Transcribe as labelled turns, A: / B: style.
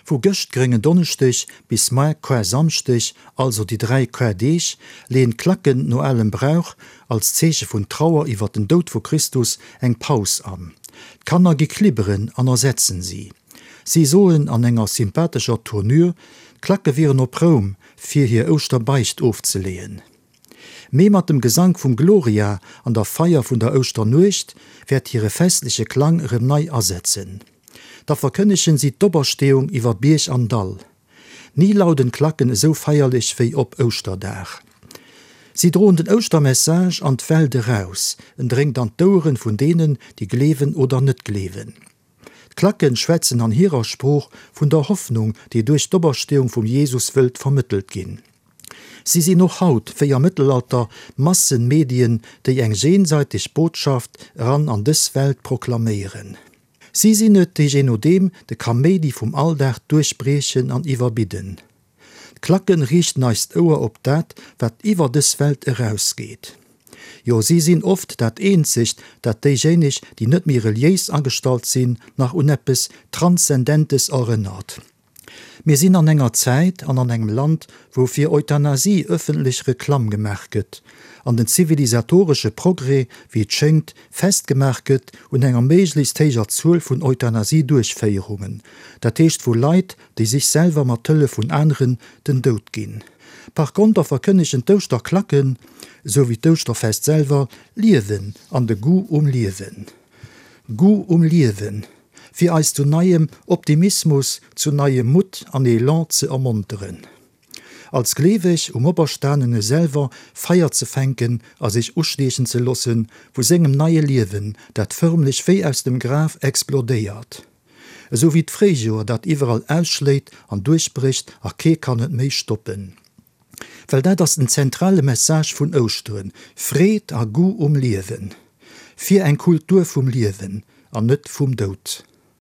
A: Vu gëscht Gréngen Donneschdeg bis moar Kar-Samschdeg, also déi 3 Kar-Deeg, leeën d'Klacken no alem Brauch, als Zeeche vun Trauer iwwer den Doud vu Christus, eng Paus an. D'Kanner gi klibberen an ersetzen si. Si soen an enger sympathescher Tournure, d'Klacke wieren op Roum, fir hir Ouschterbeicht ofzeleeën. Mee mat dem Gesank vum Gloria an der Feier vun der Ouschternuecht wäert hire festleche Klang erëm nei asetzen. Da verkënnegen si d'Opersteeung iwwer Bierg an Dall. Ni lauden d'Klacken esou feierlech wéi op Ouschterdag. Si droen den Ouschtermessage an d'Welt eraus, en dréngt an d'Oueren vun deenen, déi gleewen oder net gleewen. D'Klacken schwätzen an hirer Sprooch vun der Hoffnung, déi duerch d'Opersteeung vum Jesus wëllt vermëttelt ginn. Si sinn och haut, wéi am Mëttelalter, Massenmedien, déi eng jenseiteg Botschaft eran an dës Welt proklaméieren. Si sinn et, déi je nodeem de Kaméidi vum Alldag duerchbriechen an iwwerbidden. D'Klacken riichten eist Ouer op dat, wat iwwer dës Welt erausgeet. Jo, si sinn oft dat eenzegt, dat déijéineg, déi net méi reliéis agestallt sinn, nach un eppes Transzendentes erënnert. Mir sinn an enger Zäit an an engem Land, wou fir Euthanasie ëffentlech Reklamm gemaach gëtt an den zivilisatoresche Progrès, wéi et schéngt, festgemaach gëtt un enger méiglechst héijer Zuel vun Euthanasie-Duerchféierungen, dat heescht vu Leit, déi sech selwer mat Hëllef vun aneren den Doud ginn. Par konter verkënnegen d'Ouschterklacken, esou wéi d'Ouschterfest selwer, Liewen an de Goût um Liewen. Goût um Liewen, fir eis zu neiem Optimismus, zu neiem Mutt an Elan ze ermonteren. Als Gleeweg um Operstanene selwer Feier ze fänken a sech ustiechen ze loossen vu sengem neie Liewen, dat förmlech wéi aus dem Graf explodéiert. Esou wéi d'Fréijoer, dat iwwerall ausschléit an duerchbrécht a kee kann et méi stoppen. Well dat ass den zentrale Message vun Ouschteren, Freed a Goût um Liewen. Fir eng Kultur vum Liewen an net vum Doud.